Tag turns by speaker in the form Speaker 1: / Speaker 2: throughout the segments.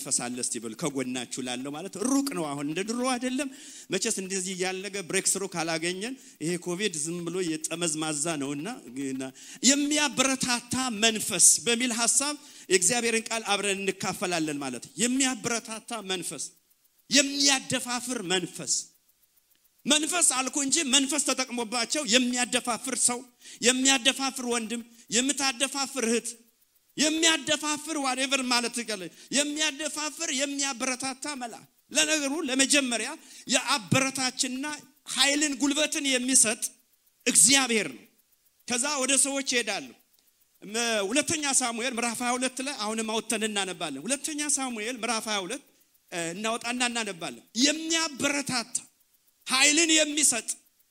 Speaker 1: መንፈስ አለ እስቲ በሉ ከጎናችሁ ላለው ማለት ሩቅ ነው አሁን እንደ ድሮ አይደለም መቼስ እንደዚህ ያለገ ብሬክ ስሩ ካላገኘን ይሄ ኮቪድ ዝም ብሎ የጠመዝማዛ ነውና የሚያበረታታ መንፈስ በሚል ሐሳብ የእግዚአብሔርን ቃል አብረን እንካፈላለን ማለት የሚያበረታታ መንፈስ የሚያደፋፍር መንፈስ አልኩ እንጂ መንፈስ ተጠቅሞባቸው የሚያደፋፍር ሰው የሚያደፋፍር ወንድም የምታደፋፍር እህት የሚያደፋፍር whatever ማለት ይቀለ የሚያደፋፍር የሚያበረታታ መልአክ ለነገሩ ለመጀመሪያ የአበረታችና ኃይልን ጉልበትን የሚሰጥ እግዚአብሔር ነው ከዛ ወደ ሰዎች ይሄዳሉ ሁለተኛ ሳሙኤል ምዕራፍ 22 ላይ አሁንም አውጥተን እናነባለን ሁለተኛ ሳሙኤል ምዕራፍ 22 እናወጣና እናነባለን የሚያበረታታ ኃይልን የሚሰጥ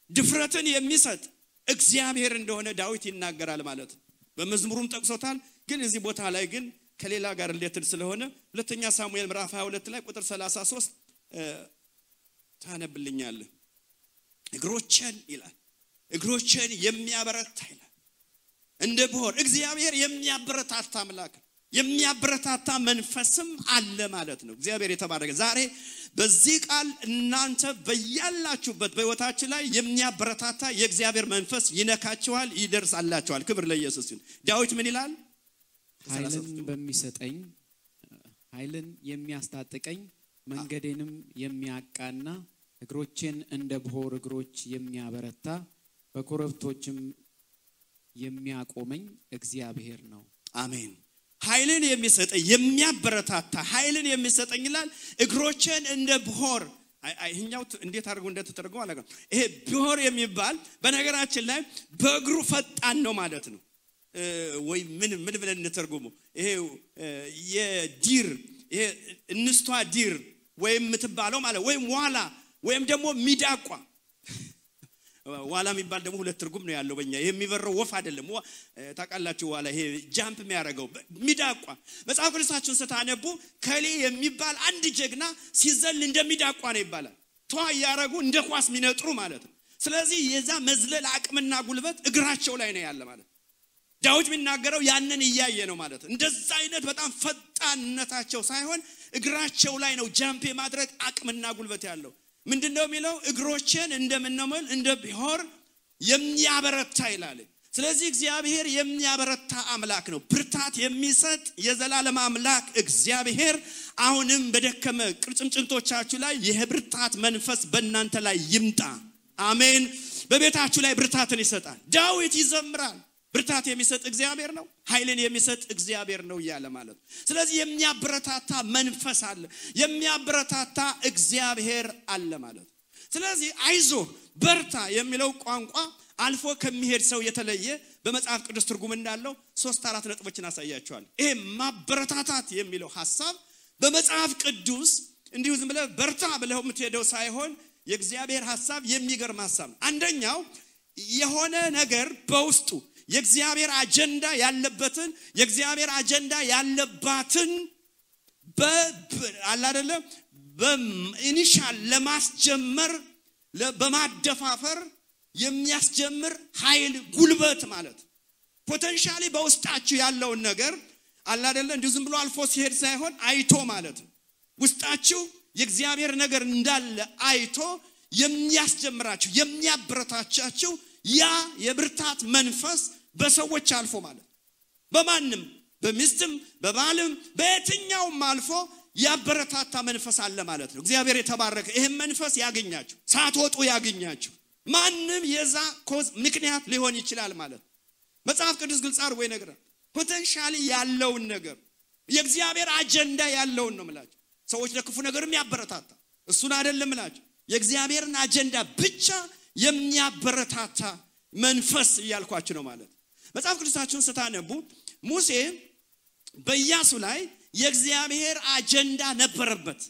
Speaker 1: ድፍረትን የሚሰጥ እግዚአብሔር እንደሆነ ዳዊት ይናገራል ማለት በመዝሙሩም ጠቅሶታል ግን እዚህ ቦታ ላይ ግን ከሌላ ጋር ሪሌትድ ስለሆነ ሁለተኛ ሳሙኤል ምዕራፍ 22 ላይ ቁጥር 33 ታነብልኛል እግሮችን ይላል እግሮችን የሚያበረታ ይላል እንደ በሆር እግዚአብሔር የሚያበረታታ አምላክ የሚያበረታታ መንፈስም አለ ማለት ነው እግዚአብሔር የተባረከ ዛሬ በዚህ ቃል እናንተ በያላችሁበት በህይወታችሁ ላይ የሚያበረታታ የእግዚአብሔር መንፈስ ይነካችኋል ይደርሳላችኋል ክብር ለኢየሱስ ይሁን ዳዊት ምን ይላል
Speaker 2: ኃይልን በሚሰጠኝ ኃይልን የሚያስታጥቀኝ መንገዴንም የሚያቃና እግሮችን እንደ በሆር እግሮች የሚያበረታ በኮረብቶችም የሚያቆመኝ እግዚአብሔር ነው
Speaker 1: አሜን ኃይልን የሚሰጠኝ የሚያበረታታ ኃይልን የሚሰጠኝ ይላል እግሮችን እንደ በሆር አይኛው እንዴት አድርጎ እንደተተረጎመ አላውቅም ይሄ በሆር የሚባል በነገራችን ላይ በእግሩ ፈጣን ነው ማለት ነው ወይ ምን ብለን እንተርጉመው ይሄ የዲር ይሄ እንስቷ ዲር ወይም ምትባለው ማለት ወይም ዋላ ወይም ደግሞ ሚዳቋ ዋላ የሚባል ደግሞ ሁለት ትርጉም ነው ያለው በእኛ የሚበረው ወፍ አይደለም ታቃላችሁ ዋላ ይሄ ጃምፕ የሚያደርገው ሚዳቋ መጽሐፍ ቅዱሳችሁን ስታነቡ ከሌ የሚባል አንድ ጀግና ሲዘል እንደሚዳቋ ነው ይባላል ተዋ ያረጉ እንደ ኳስ ሚነጥሩ ማለት ነው ስለዚህ የዛ መዝለል አቅምና ጉልበት እግራቸው ላይ ነው ያለ ማለት ዳዊት የሚናገረው ያንን ይያየ ነው ማለት እንደዛ አይነት በጣም ፈጣንነታቸው ሳይሆን እግራቸው ላይ ነው ጃምፕ የማድረግ አቅምና ጉልበት ያለው ምንድነው የሚለው እግሮችን እንደምንመል እንደ ቢሆር የሚያበረታ ይላል ስለዚህ እግዚአብሔር የሚያበረታ አምላክ ነው ብርታት የሚሰጥ የዘላለም አምላክ እግዚአብሔር አሁንም በደከመ ቅርጭምጭምቶቻችሁ ላይ የብርታት መንፈስ በእናንተ ላይ ይምጣ አሜን በቤታችሁ ላይ ብርታትን ይሰጣል ዳዊት ይዘምራል ብርታት የሚሰጥ እግዚአብሔር ነው ኃይልን የሚሰጥ እግዚአብሔር ነው ይያለ ማለት ስለዚህ የሚያበረታታ መንፈስ አለ የሚያበረታታ እግዚአብሔር አለ ማለት ስለዚህ አይዞ በርታ የሚለው ቋንቋ አልፎ ከሚሄድ ሰው የተለየ በመጽሐፍ ቅዱስ ትርጉም እንዳለው 3-4 ነጥቦችን አሳያችኋል ይሄ ማበረታታት የሚለው ሐሳብ በመጽሐፍ ቅዱስ እንዲሁ ዝም ብለ በርታ ብለው የምትሄደው ሳይሆን የእግዚአብሔር ሐሳብ የሚገርም ሐሳብ አንደኛው የሆነ ነገር በውስጡ የእግዚአብሔር አጀንዳ ያለበትን የእግዚአብሔር አጀንዳ ያለባትን በአላደለ በኢኒሻል ለማስጀመር በማደፋፈር የሚያስጀምር ኃይል ጉልበት ማለት ፖቴንሻሊ በውስጣችሁ ያለውን ነገር አላደለ እንዲሁ ዝም ብሎ አልፎ ሲሄድ ሳይሆን አይቶ ማለት ውስጣችሁ የእግዚአብሔር ነገር እንዳለ አይቶ የሚያስጀምራችሁ የሚያበረታቻችሁ ያ የብርታት መንፈስ በሰዎች አልፎ ማለት በማንም በሚስትም በባልም በየትኛውም አልፎ ያበረታታ መንፈስ አለ ማለት ነው እግዚአብሔር የተባረከ ይሄን መንፈስ ያገኛችሁ ሳትወጡ ያገኛችሁ ማንም የዛ ኮዝ ምክንያት ሊሆን ይችላል ማለት መጽሐፍ ቅዱስ ግልጽ አድርጎ ይነግራል ፖቴንሻሊ ያለውን ነገር የእግዚአብሔር አጀንዳ ያለውን ነው ማለት ሰዎች ለክፉ ነገርም ያበረታታ እሱን አይደለም ማለት የእግዚአብሔርን አጀንዳ ብቻ የሚያበረታታ መንፈስ ይያልኳችሁ ነው ማለት መጽሐፍ ቅዱሳችሁን ስታነቡ ሙሴ በኢያሱ ላይ የእግዚአብሔር አጀንዳ ነበረበት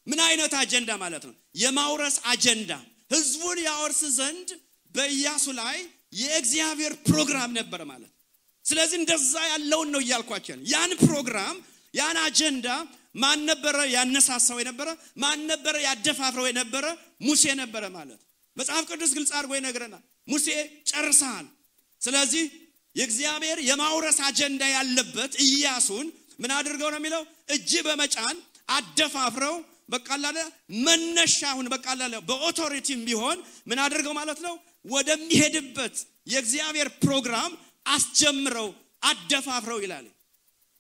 Speaker 1: ምን አይነት አጀንዳ ማለት ነው የማውረስ አጀንዳ ህዝቡን ያወርስ ዘንድ በኢያሱ ላይ የእግዚአብሔር ፕሮግራም ነበር ማለት ስለዚህ እንደዛ ያለውን ነው ይያልኳችሁ ያን ፕሮግራም ያን አጀንዳ ማን ነበር ያነሳሳው የነበረ ማን ነበር ያደፋፍረው የነበረ ሙሴ ነበር ማለት መጽሐፍ ቅዱስ ግልጽ አድርጎ ይነግረናል ሙሴ ጨርሰሃል ስለዚህ የእግዚአብሔር የማውረስ አጀንዳ ያለበት ኢያሱን ምን አድርገው ነው የሚለው እጅ በመጫን አደፋፍረው በቃላለ መነሻውን በቃላለ በኦቶሪቲም ቢሆን ምን አድርገው ማለት ነው ወደሚሄድበት የእግዚአብሔር ፕሮግራም አስጀምረው አደፋፍረው ይላል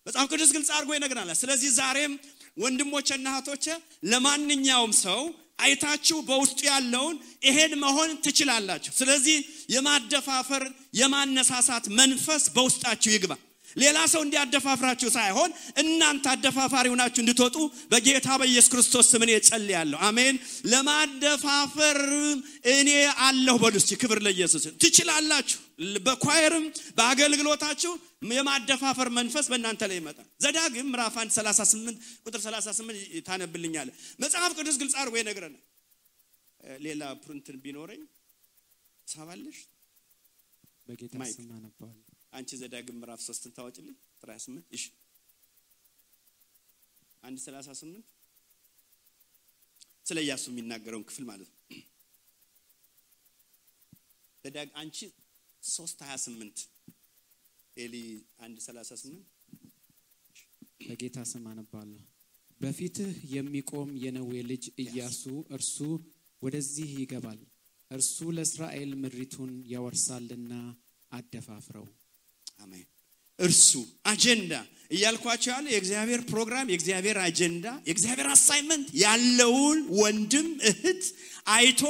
Speaker 1: መጽሐፍ ቅዱስ ግልጽ አድርጎ ይነግረናል። ስለዚህ ዛሬም ወንድሞችና እህቶች ለማንኛውም ሰው አይታችሁ በውስጡ ያለውን ይሄን መሆን ትችላላችሁ። ስለዚህ የማደፋፈር የማነሳሳት መንፈስ በውስጣችሁ ይግባ። ሌላ ሰው እንዲያደፋፍራችሁ ሳይሆን እናንተ አደፋፋሪ ሆናችሁ እንድትወጡ በጌታ በኢየሱስ ክርስቶስ ስም እኔ ጸልያለሁ። አሜን። ለማደፋፈር እኔ አለሁ በሉስ። ክብር ለኢየሱስ። ትችላላችሁ። በኳየርም በአገልግሎታችሁ የማደፋፈር መንፈስ በእናንተ ላይ ይመጣል። ዘዳግም ምዕራፍ 1:38 ቁጥር 38 ታነብልኛለህ። መጽሐፍ ቅዱስ ግልጽ አድርጎ ይነግረናል። ሌላ ፕሪንትን ቢኖረኝ ሳባለሽ
Speaker 2: በጌታ ስም አነባለሁ።
Speaker 1: አንቺ ዘዳግም ምዕራፍ 3ን ታወጪልኝ ቁጥር 28 እሺ 1:38 ስለ ኢያሱ የሚናገረውን ክፍል ማለት ነው። ዘዳግ አንቺ 3:28 ኤሊ 1:38
Speaker 2: በጌታ ስም አነባለሁ። በፊትህ የሚቆም የነዌ ልጅ ኢያሱ እርሱ ወደዚህ ይገባል፣ እርሱ ለእስራኤል ምድሪቱን ያወርሳልና አደፋፍረው። አሜን። እርሱ አጀንዳ እያልኳቸው ያለ የእግዚአብሔር ፕሮግራም የእግዚአብሔር አጀንዳ የእግዚአብሔር አሳይመንት ያለውን ወንድም እህት አይቶ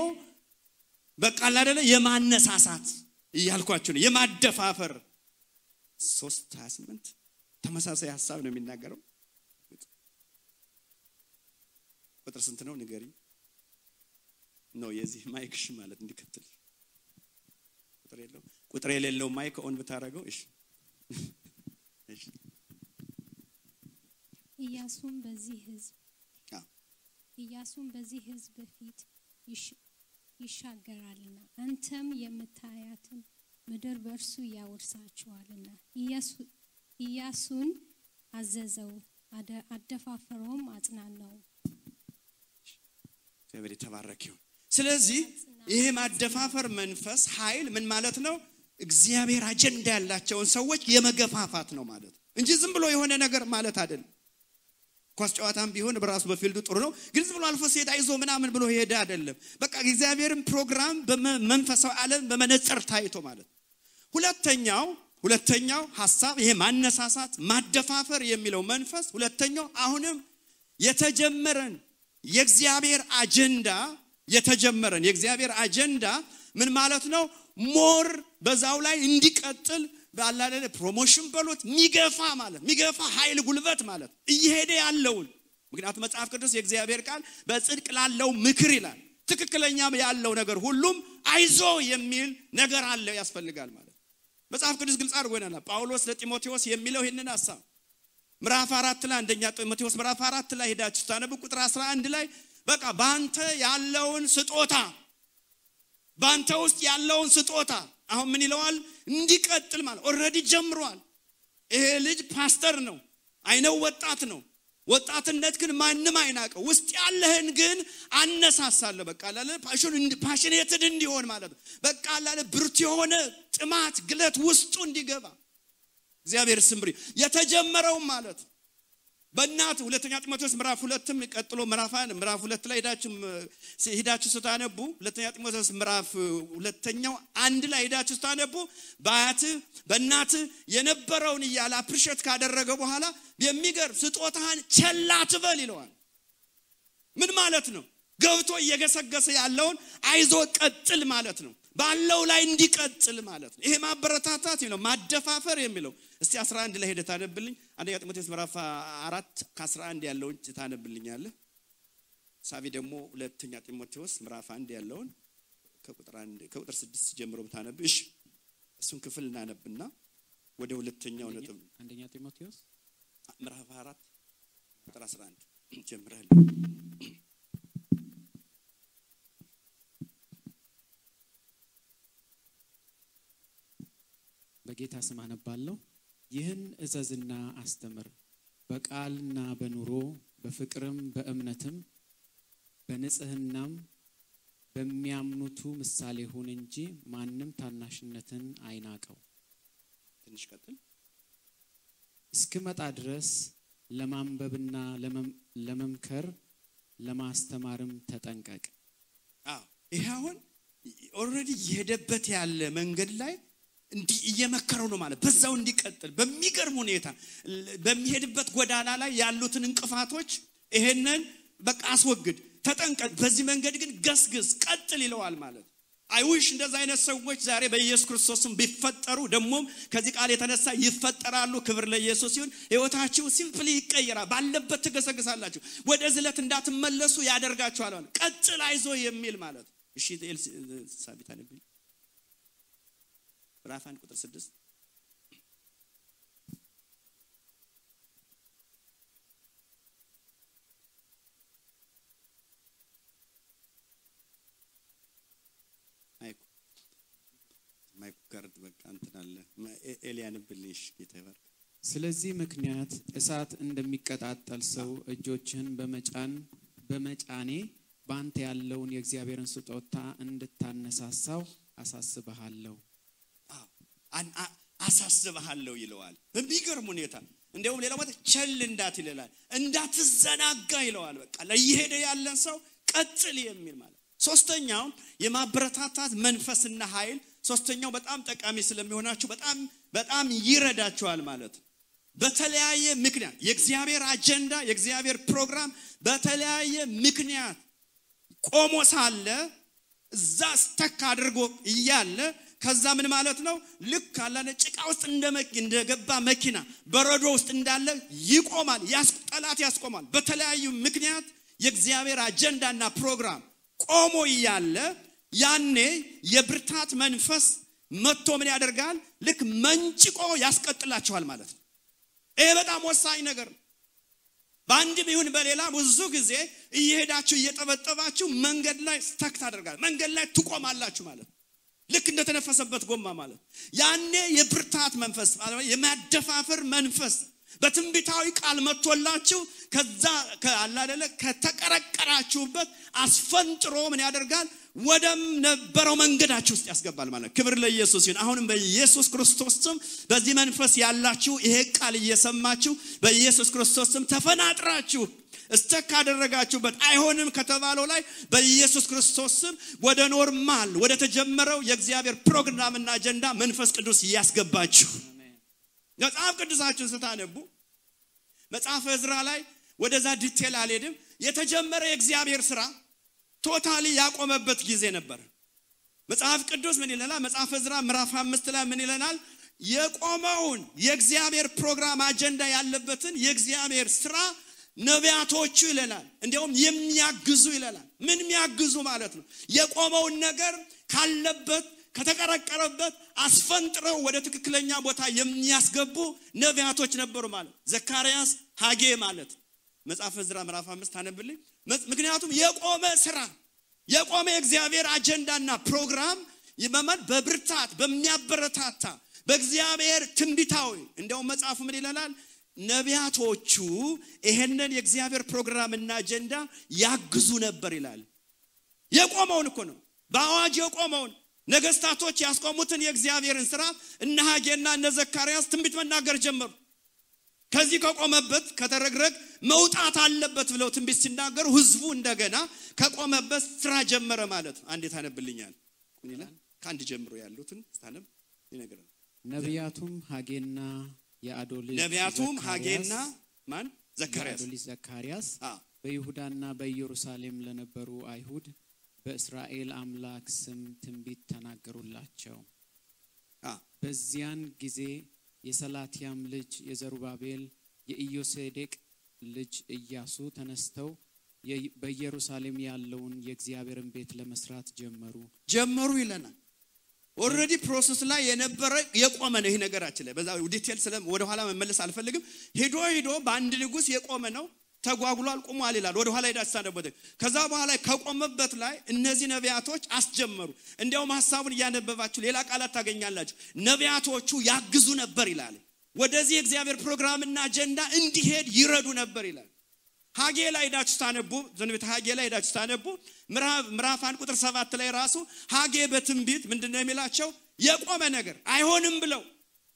Speaker 2: በቃል አይደለ የማነሳሳት እያልኳቸው ነው የማደፋፈር 3:28 ተመሳሳይ ሐሳብ ነው የሚናገረው። ቁጥር ስንት ነው ንገሪኝ? ነው የዚህ ማይክሽ ማለት እንዲከተል ቁጥር የሌለው ማይክ ኦን ብታረገው እሺ እሺ
Speaker 3: ኢያሱም በዚህ ህዝብ ፊት ይሻገራልና አንተም የምታያትን ምድር በእርሱ ያወርሳቸዋልና ኢያሱን አዘዘው አደፋፈረውም አጽናናው።
Speaker 1: እግዚአብሔር የተባረከ ይሁን። ስለዚህ ይሄ ማደፋፈር መንፈስ ኃይል ምን ማለት ነው? እግዚአብሔር አጀንዳ ያላቸውን ሰዎች የመገፋፋት ነው ማለት እንጂ ዝም ብሎ የሆነ ነገር ማለት አይደለም። ኳስ ጨዋታም ቢሆን በራሱ በፊልዱ ጥሩ ነው፣ ግን ዝም ብሎ አልፎ ሲሄድ አይዞ ምናምን ብሎ ሄደ አይደለም። በቃ እግዚአብሔርን ፕሮግራም በመንፈሳዊ ዓለም በመነጽር ታይቶ ማለት። ሁለተኛው ሐሳብ ይሄ ማነሳሳት ማደፋፈር የሚለው መንፈስ ሁለተኛው አሁንም የተጀመረን የእግዚአብሔር አጀንዳ ምን ማለት ነው? ሞር በዛው ላይ እንዲቀጥል ባላለ ፕሮሞሽን በሉት ሚገፋ ኃይል ጉልበት ማለት እየሄደ ያለውን። ምክንያቱም መጽሐፍ ቅዱስ የእግዚአብሔር ቃል በጽድቅ ላለው ምክር ይላል። ትክክለኛም ያለው ነገር ሁሉም አይዞ የሚል ነገር አለ ያስፈልጋል ማለት መጽሐፍ ቅዱስ ግልጽ አድርጎ ይናል። ጳውሎስ ለጢሞቴዎስ የሚለው ይሄንን ሐሳብ ምዕራፍ 4 ላይ አንደኛ ጢሞቴዎስ ምዕራፍ 4 ላይ ሄዳችሁ ታነቡ ቁጥር 11 ላይ በቃ ባንተ ውስጥ ያለውን ስጦታ አሁን ምን ይለዋል? እንዲቀጥል ማለት ኦሬዲ ጀምሯል። ይሄ ልጅ ፓስተር ነው፣ አይነው ወጣት ነው። ወጣትነት ግን ማንንም አይናቀው። ውስጥ ያለህን ግን አነሳሳለሁ በቃ አላለ ፓሽኔትድ እንዲሆን ማለት ነው። በቃ አላለ ብርቱ የሆነ ጥማት ግለት ውስጡ እንዲገባ እግዚአብሔር ስምሪ የተጀመረው ማለት በእናት ሁለተኛ ጢሞቴዎስ ምዕራፍ 2ም ቀጥሎ ምዕራፍ 2 ላይ ሄዳችሁ ስታነቡ ሁለተኛ ጢሞቴዎስ ምዕራፍ 2 ላይ ሄዳችሁ ስታነቡ በእናት የነበረውን ይያላ አፕሪሼት ካደረገ በኋላ የሚገርም ስጦታን ቸል አትበል ይለዋል። ምን ማለት ነው? ገብቶ እየገሰገሰ ያለውን አይዞ ቀጥል ማለት ነው። ባለው ላይ እንዲቀጥል ማለት ነው። ይሄ ማበረታታት ነው ማደፋፈር የሚለው። እስቲ 11 ላይ ሄደህ ታነብልኝ። አንደኛ ጢሞቴዎስ ምዕራፍ 4 ከ11 ያለውን ታነብልኛለህ። ሳቢ ደግሞ ሁለተኛ ጢሞቴዎስ ምዕራፍ 1 ያለውን ከቁጥር 6 ጀምሮ ብታነብ እሺ። እሱን ክፍል እናነብና ወደ ሁለተኛው ነጥብ
Speaker 2: አንደኛ ጢሞቴዎስ
Speaker 1: ምዕራፍ 4 ቁጥር 11 ጀምረሃል።
Speaker 2: በጌታ ስም አነባለሁ። ይህን እዘዝና አስተምር፣ በቃልና በኑሮ በፍቅርም በእምነትም በንጽህናም በሚያምኑቱ ምሳሌ ሁን እንጂ ማንም ታናሽነትን አይናቀው።
Speaker 1: ትንሽ ቀጥል።
Speaker 2: እስክመጣ ድረስ
Speaker 4: ለማንበብና ለመምከር ለማስተማርም ተጠንቀቅ።
Speaker 1: ይሄ አሁን ኦሬዲ የሄደበት ያለ መንገድ ላይ እንዲ እየመከረው ነው ማለት በዛው እንዲቀጥል በሚገርም ሁኔታ በሚሄድበት ጎዳና ላይ ያሉትን እንቅፋቶች ይሄንን በቃ አስወግድ ተጠንቀቅ በዚህ መንገድ ግን ገስግስ ቀጥል ይለዋል ማለት አይውሽ እንደዛ አይነት ሰዎች ዛሬ በኢየሱስ ክርስቶስም ቢፈጠሩ ደሞም ከዚህ ቃል የተነሳ ይፈጠራሉ ክብር ለኢየሱስ ይሁን ህይወታችሁ ሲምፕሊ ይቀየራል ባለበት ትገሰግሳላችሁ ወደ ዝለት እንዳትመለሱ ያደርጋችኋል ቀጥል አይዞ የሚል ማለት እሺ ሳቢታ ነብይ ምዕራፍ 1 ቁጥር 6 ማይኩርት በቃ እንተናለ ኤሊያን ብልሽ ጌታዬ
Speaker 4: ስለዚህ ምክንያት እሳት እንደሚቀጣጣል ሰው እጆችን በመጫኔ ባንተ ያለውን የእግዚአብሔርን ስጦታ እንድታነሳሳው አሳስበሃለሁ
Speaker 1: አሳስበሃለሁ ይለዋል በሚገርም ሁኔታ እንደውም ሌላው ማለት ቸል እንዳትይላል እንዳትዘናጋ ይለዋል በቃ ለይሄደ ያለን ሰው ቀጥል የሚል ማለት ሶስተኛው የማበረታታት መንፈስና ኃይል ሶስተኛው በጣም ጠቃሚ ስለሚሆናችሁ በጣም ይረዳችኋል ማለት በተለያየ ምክንያት የእግዚአብሔር አጀንዳ የእግዚአብሔር ፕሮግራም በተለያየ ምክንያት ቆሞ ሳለ እዛ ስተክ አድርጎ ይያለ ከዛ ምን ማለት ነው ልክ አላነ ጭቃ ውስጥ እንደገባ መኪና በረዶ ውስጥ እንዳለ ይቆማል ያስጠላት ያስቆማል በተለያዩ ምክንያት የእግዚአብሔር አጀንዳና ፕሮግራም ቆሞ ይያለ ያኔ የብርታት መንፈስ መጥቶ ምን ያደርጋል ልክ መንጭቆ ያስቀጥላችኋል ማለት ነው ይሄ በጣም ወሳኝ ነገር ባንድ ቢሆን በሌላ ብዙ ጊዜ እየሄዳችሁ እየጠበጠባችሁ መንገድ ላይ ስተክ ታደርጋላችሁ መንገድ ላይ ትቆማላችሁ ማለት ልክ እንደተነፈሰበት ጎማ ማለት ያኔ የብርታት መንፈስ የማደፋፈር መንፈስ በትንቢታዊ ቃል መጥቶላችሁ ከዛ ከአላደለ ከተቀረቀራችሁበት አስፈንጥሮ ምን ያደርጋል ወደም ነበረው መንገዳችሁ ውስጥ ያስገባል ማለት ክብር ለኢየሱስ ይሁን አሁንም በኢየሱስ ክርስቶስ ስም በዚህ መንፈስ ያላችሁ ይሄ ቃል እየሰማችሁ በኢየሱስ ክርስቶስ ስም ተፈናጥራችሁ እስተካ አደረጋችሁበት አይሆንም ከተባለው ላይ በኢየሱስ ክርስቶስ ስም ወደ ኖርማል ወደ ተጀመረው የእግዚአብሔር ፕሮግራምና አጀንዳ መንፈስ ቅዱስ ያስገባችሁ መጽሐፍ ቅዱሳችሁን ስታነቡ መጽሐፈ ዕዝራ ላይ ወደዛ ዲቴል አልሄድም የተጀመረ የእግዚአብሔር ሥራ ቶታሊ ያቆመበት ጊዜ ነበር መጽሐፍ ቅዱስ ምን ይለናል መጽሐፈ ዕዝራ ምዕራፍ 5 ላይ ምን ይለናል የቆመውን የእግዚአብሔር ፕሮግራም አጀንዳ ያለበትን የእግዚአብሔር ሥራ ነቢያቶቹ ይለናል እንደውም የሚያግዙ ይለናል ምን የሚያግዙ ማለት ነው የቆመውን ነገር ካለበት ከተቀረቀረበት አስፈንጥረው ወደ ትክክለኛ ቦታ የሚያስገቡ ነቢያቶች ነበሩ ማለት ዘካርያስ ሐጌ ማለት መጽሐፈ ዕዝራ ምዕራፍ 5 አነብልኝ ምክንያቱም የቆመ ሥራ የቆመ የእግዚአብሔር አጀንዳና ፕሮግራም ይመመን በብርታት በሚያበረታታ በእግዚአብሔር ትንቢታዊ እንደውም መጽሐፉ ምን ይላል ነቢያቶቹ ይሄንን የእግዚአብሔር ፕሮግራምና አጀንዳ ያግዙ ነበር ይላል የቆመውን እኮ ነው በአዋጅ የቆመውን ነገስታቶች ያስቆሙትን የእግዚአብሔርን ሥራ እነ ሐጌና እነ ዘካርያስ ትንቢት መናገር ጀመሩ ከዚህ ከቆመበት ከተረግረግ መውጣት አለበት ብለው ትንቢት ሲናገሩ ህዝቡ እንደገና ከቆመበት ሥራ ጀመረ ማለት አንዴ ታነብልኛል ምን ይላል ካንድ ጀምሮ ያሉትን ታነብ ይነገራል
Speaker 4: ነቢያቱም ሐጌና
Speaker 1: ማን
Speaker 4: ዘካርያስ በይሁዳና በኢየሩሳሌም ለነበሩ አይሁድ በእስራኤል አምላክ ስም ትንቢት ተናገሩላቸው በዚያን ጊዜ የሰላትያም ልጅ የዘሩባቤል የኢዮሴዴቅ ልጅ ኢያሱ ተነስተው በኢየሩሳሌም ያለውን የእግዚአብሔርን ቤት ለመስራት ጀመሩ ይለናል ኦሬዲ ፕሮሰስ ላይ የነበረ የቆመ ነው ይሄ ነገራችን ላይ በዛ ዲቴል ወደ ኋላ መመለስ አልፈልግም ሄዶ በአንድ ንጉስ የቆመ ነው ተጓጉሏል ቆሟል ይላል ወደ ኋላ ይዳሳደበት ከዛ በኋላ ከቆመበት ላይ እነዚህ ነቢያቶች አስጀመሩ እንደውም ሐሳቡን ያነበባችሁ ሌላ ቃላት ታገኛላችሁ ነቢያቶቹ ያግዙ ነበር ይላል ወደዚህ እግዚአብሔር ፕሮግራምና አጀንዳ እንዲሄድ ይረዱ ነበር ይላል ሐጌ ላይ ዳችሁ ታነቡ ዘንበተ ሐጌ ላይ ዳችሁ ታነቡ ምዕራፍ 1 ቁጥር 7 ላይ ራሱ ሐጌ በትንቢት ምንድነው የሚላቸው የቆመ ነገር አይሆንም ብለው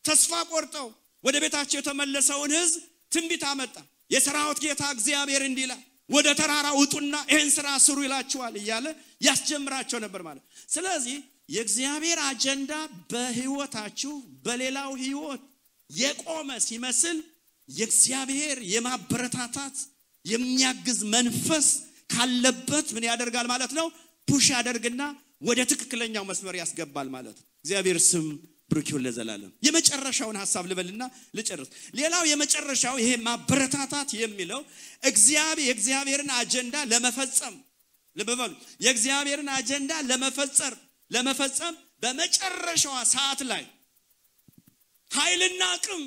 Speaker 4: ተስፋ ቆርጠው ወደ ቤታቸው የተመለሰውን ህዝብ ትንቢት አመጣ
Speaker 1: የሰራዊት ጌታ እግዚአብሔር እንዲህ ይላል ወደ ተራራ ውጡና ይህን ስራ ስሩ ይላችኋል እያለ ያስጀምራቸው ነበር ማለት። ስለዚህ የእግዚአብሔር አጀንዳ በህይወታችሁ በሌላው ህይወት የቆመ ሲመስል የእግዚአብሔር የማበረታታት የሚያግዝ መንፈስ ካለበት ምን ያደርጋል ማለት ነው? ፑሽ ያደርግና ወደ ትክክለኛው መስመር ያስገባል ማለት ነው። እግዚአብሔር ስም ብሩክ ይሁን ለዘላለም። የመጨረሻውን ሐሳብ ልበልና ልጨርስ። ሌላው የመጨረሻው ይሄ ማበረታታት የሚለው የእግዚአብሔርን አጀንዳ ለመፈጸም ልበሉ የእግዚአብሔርን አጀንዳ ለመፈጸም በመጨረሻዋ ሰዓት ላይ ኃይልና አቅም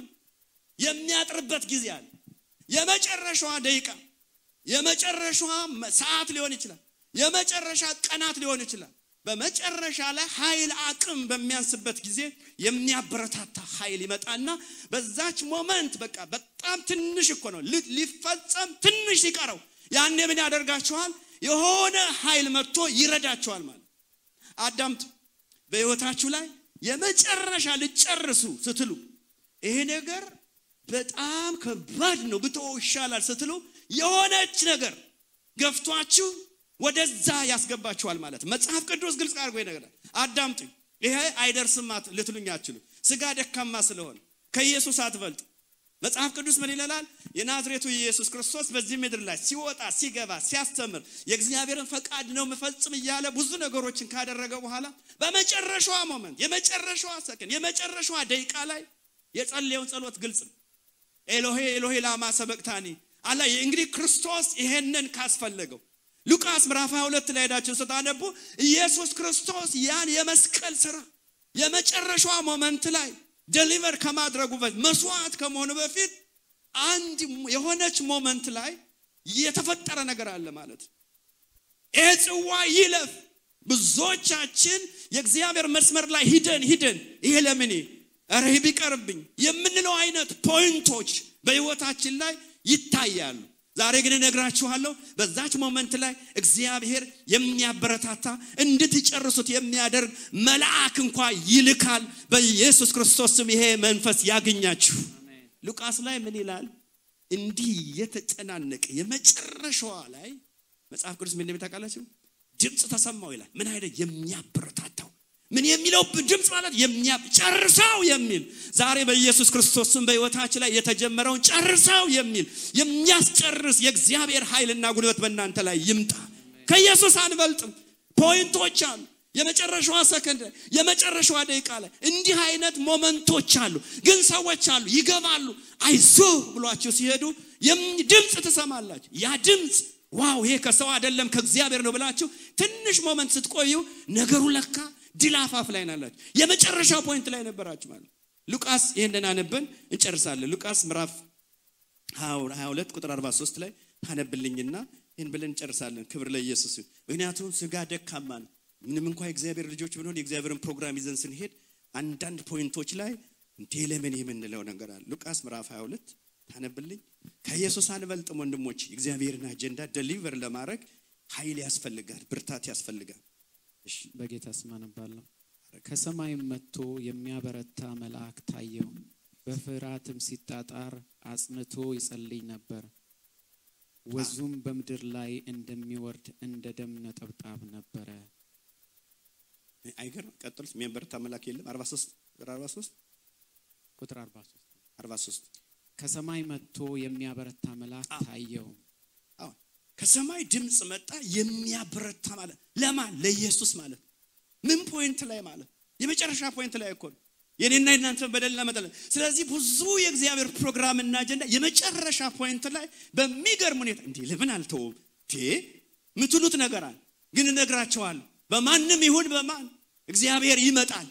Speaker 1: የሚያጥርበት ጊዜ አለ። የመጨረሻዋ ደቂቃ የመጨረሻዋ ሰዓት ሊሆን ይችላል፣ የመጨረሻ ቀናት ሊሆን ይችላል። በመጨረሻ ላይ ኃይል አቅም በሚያንስበት ጊዜ የሚያበረታታ ኃይል ይመጣና በዛች ሞመንት በቃ በጣም ትንሽ እኮ ነው ሊፈጸም ትንሽ ሲቀረው ያኔ ምን ያደርጋችኋል? የሆነ ኃይል መጥቶ ይረዳችኋል ማለት። አዳምጡ። በህይወታችሁ ላይ የመጨረሻ ልጨርሱ ስትሉ ይሄ ነገር በጣም ከባድ ነው ብትወው ይሻላል ስትሉ የሆነች ነገር ገፍቷችሁ ወደዛ ያስገባችኋል ማለት። መጽሐፍ ቅዱስ ግልጽ አድርጎ ይነግራል። አዳምጡ። ይሄ አይደርስም ልትሉኝ አትችሉ። ስጋ ደካማ ስለሆነ ከኢየሱስ አትበልጥ። መጽሐፍ ቅዱስ ምን ይላል? የናዝሬቱ ኢየሱስ ክርስቶስ በዚህ ምድር ላይ ሲወጣ ሲገባ ሲያስተምር የእግዚአብሔርን ፈቃድ ነው መፈጽም እያለ ብዙ ነገሮችን ካደረገ በኋላ በመጨረሻዋ ሞመንት የመጨረሻዋ ሰከንድ የመጨረሻዋ ደቂቃ ላይ የጸለየውን ጸሎት ግልጽ ነው። ኤሎሄ ኤሎሄ ላማ ሰበቅታኒ አላ። እንግዲህ ክርስቶስ ይሄንን ካስፈለገው ሉቃስ ምዕራፍ 22 ላይ ሄዳችሁ ስታነቡ ኢየሱስ ክርስቶስ ያን የመስቀል ሥራ የመጨረሻዋ ሞመንት ላይ ዴሊቨር ከማድረጉ በፊት መስዋዕት ከመሆኑ በፊት አንድ የሆነች ሞመንት ላይ የተፈጠረ ነገር አለ ማለት። ጽዋ ይለፍ። ብዙዎቻችን የእግዚአብሔር መስመር ላይ ሂደን ይሄ ለምን አረ ቢቀርብኝ የምንለው አይነት ፖይንቶች በህይወታችን ላይ ይታያሉ። ዛሬ ግን እነግራችኋለሁ በዛች ሞመንት ላይ እግዚአብሔር የሚያበረታታ እንድትጨርሱት የሚያደርግ መልአክ እንኳን ይልካል። በኢየሱስ ክርስቶስ ስም ይሄ መንፈስ ያገኛችሁ። ሉቃስ ላይ ምን ይላል? እንዲህ የተጨናነቀ የመጨረሻዋ ላይ መጽሐፍ ቅዱስ ምን እንደሚታውቃላችሁ ድምጽ ተሰማው ይላል። ምን አይደል የሚያበረታታው ምን የሚለው ድምጽ ማለት የሚያጨርሰው የሚል። ዛሬ በኢየሱስ ክርስቶስ ስም በህይወታችን ላይ የተጀመረውን ጨርሰው የሚል የሚያስጨርስ የእግዚአብሔር ኃይልና ጉልበት በእናንተ ላይ ይምጣ። ከኢየሱስ አንበልጥም። ፖይንቶች አሉ። የመጨረሻዋ ሰከንድ የመጨረሻዋ ደቂቃ ላይ እንዲህ አይነት ሞመንቶች አሉ። ግን ሰዎች አሉ ይገባሉ አይዞህ ብሏችሁ ሲሄዱ ድምጽ ትሰማላችሁ። ያ ድምጽ ዋው ይሄ ከሰው አይደለም ከእግዚአብሔር ነው ብላችሁ ትንሽ ሞመንት ስትቆዩ ነገሩ ለካ ድላፋፍ ላይ ናላችሁ። የመጨረሻው ፖይንት ላይ ነበራችሁ ማለት። ሉቃስ ይሄንን አነብን እንጨርሳለን። ሉቃስ ምዕራፍ 22 ቁጥር 43 ላይ ታነብልኝና ይሄን ብለን እንጨርሳለን። ክብር ለኢየሱስ። ምክንያቱም ስጋ ደካማ ነው። ምንም እንኳን የእግዚአብሔር ልጆች ብንሆን የእግዚአብሔርን ፕሮግራም ይዘን ስንሄድ አንዳንድ ፖይንቶች ላይ ለምን የምንለው ነገር አለ። ሉቃስ ምዕራፍ 22 ታነብልኝ። ከኢየሱስ አንበልጥም ወንድሞች። የእግዚአብሔርን አጀንዳ ዴሊቨር ለማድረግ ኃይል ያስፈልጋል፣ ብርታት ያስፈልጋል። እሺ
Speaker 4: በጌታ ስም አነባለሁ። ከሰማይም መጥቶ የሚያበረታ መልአክ ታየው፣ በፍርሃትም ሲጣጣር አጽንቶ ይጸልይ ነበር። ወዙም በምድር ላይ እንደሚወርድ እንደ ደም ነጠብጣብ ነበረ።
Speaker 1: አይገርም? ቀጥሉት። የሚያበረታ መልአክ የለም? 43
Speaker 4: ቁጥር 43 ከሰማይ መጥቶ የሚያበረታ መልአክ ታየው።
Speaker 1: ከሰማይ ድምጽ መጣ የሚያበረታ ማለት ለማን? ለኢየሱስ ማለት። ምን ፖይንት ላይ ማለት? የመጨረሻ ፖይንት ላይ እኮ ነው የኔና የናንተ በደልና መጠለ። ስለዚህ ብዙ የእግዚአብሔር ፕሮግራም እና አጀንዳ የመጨረሻ ፖይንት ላይ በሚገርም ሁኔታ ለምን አልተውም ምትሉት ነገር አለ። ግን እነግራቸዋለሁ በማንም ይሁን በማን እግዚአብሔር ይመጣል።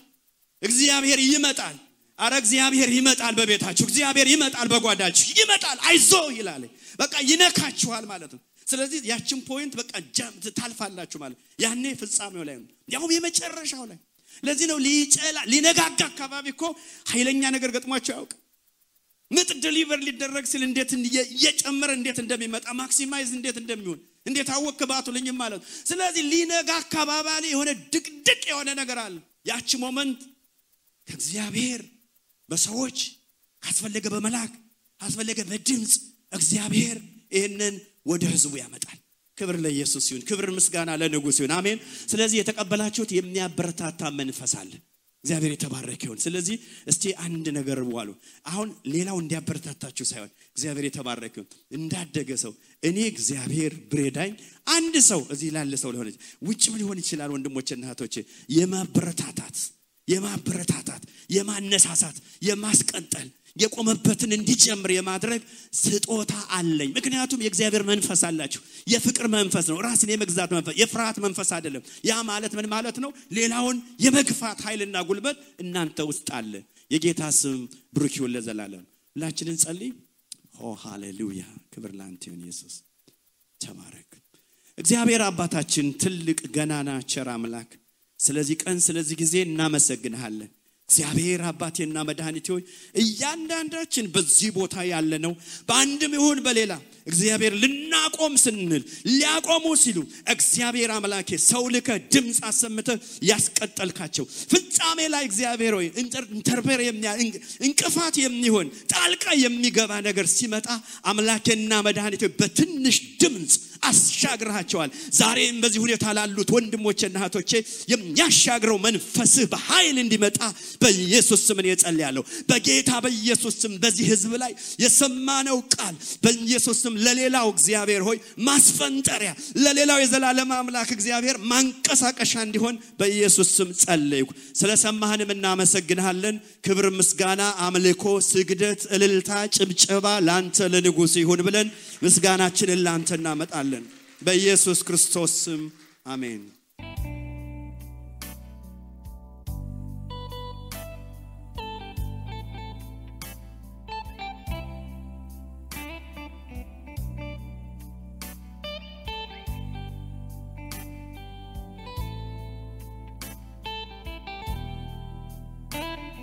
Speaker 1: እግዚአብሔር ይመጣል። አረ እግዚአብሔር ይመጣል። በቤታችሁ እግዚአብሔር ይመጣል። በጓዳችሁ ይመጣል። አይዞ ይላል። በቃ ይነካችኋል ማለት ነው። ስለዚህ ያችን ፖይንት በቃ ጃምት ታልፋላችሁ ማለት ያኔ ፍጻሜው ላይ ነው፣ ያው የመጨረሻው ላይ። ለዚህ ነው ሊነጋጋ አካባቢ እኮ ኃይለኛ ነገር ገጥሟቸው ያውቅ። ምጥ ዴሊቨር ሊደረግ ሲል እንዴት እየጨመረ እንዴት እንደሚመጣ ማክሲማይዝ እንዴት እንደሚሆን እንዴት አወክባቱልኝ ማለት። ስለዚህ ሊነጋ አካባቢ ላይ የሆነ ድቅድቅ የሆነ ነገር አለ። ያቺ ሞመንት ከእግዚአብሔር በሰዎች አስፈልገ በመላክ አስፈልገ በድምጽ እግዚአብሔር ይሄንን ወደ ህዝቡ ያመጣል። ክብር ለኢየሱስ ይሁን፣ ክብር ምስጋና ለንጉሥ ይሁን። አሜን። ስለዚህ የተቀበላችሁት የሚያበረታታ መንፈስ አለ። እግዚአብሔር የተባረከ ይሁን። ስለዚህ እስቲ አንድ ነገር ዋሉ። አሁን ሌላው እንዲያበረታታችሁ ሳይሆን እግዚአብሔር የተባረከ ይሁን። እንዳደገ ሰው እኔ እግዚአብሔር ብሬዳኝ አንድ ሰው እዚህ ላለ ሰው ሊሆን ውጭም ሊሆን ይችላል ወንድሞችና እህቶቼ የማበረታታት የማነሳሳት የማስቀጠል የቆመበትን እንዲጨምር የማድረግ ስጦታ አለኝ። ምክንያቱም የእግዚአብሔር መንፈስ አላችሁ። የፍቅር መንፈስ ነው፣ ራስን የመግዛት መንፈስ፣ የፍርሃት መንፈስ አይደለም። ያ ማለት ምን ማለት ነው? ሌላውን የመግፋት ኃይልና ጉልበት እናንተ ውስጥ አለ። የጌታ ስም ብሩክ ይሁን ለዘላለም። ሁላችንን ጸልይ። ሃሌሉያ፣ ክብር ላንተ ይሁን ኢየሱስ፣ ተባረክ። እግዚአብሔር አባታችን ትልቅ ገናና ቸር አምላክ፣ ስለዚህ ቀን ስለዚህ ጊዜ እናመሰግንሃለን። እግዚአብሔር አባቴና መድኃኒቴ ሆይ እያንዳንዳችን በዚህ ቦታ ያለ ነው በአንድም ይሁን በሌላ እግዚአብሔር ልናቆም ስንል ሊያቆሙ ሲሉ እግዚአብሔር አምላኬ ሰው ልከ ድምጽ አሰምተ ያስቀጠልካቸው ፍጻሜ ላይ እግዚአብሔር ሆይ ኢንተርፌር እንቅፋት የሚሆን ጣልቃ የሚገባ ነገር ሲመጣ አምላኬና መድኃኒቴ በትንሽ ድምጽ አሻግራቸዋል። ዛሬም በዚህ ሁኔታ ላሉት ወንድሞችና እህቶቼ የሚያሻግረው መንፈስህ በኃይል እንዲመጣ በኢየሱስ ስም እጸልያለሁ። በጌታ በኢየሱስ ስም በዚህ ህዝብ ላይ የሰማነው ቃል በኢየሱስ ስም ለሌላው እግዚአብሔር ሆይ ማስፈንጠሪያ፣ ለሌላው የዘላለም አምላክ እግዚአብሔር ማንቀሳቀሻ እንዲሆን በኢየሱስ ስም ጸልይኩ። ስለሰማህንም እናመሰግንሃለን። ክብር፣ ምስጋና፣ አምልኮ፣ ስግደት፣ እልልታ፣ ጭብጨባ ላንተ ለንጉሥ ይሁን ብለን ምስጋናችንን ላንተ እናመጣለን በኢየሱስ ክርስቶስ ስም አሜን።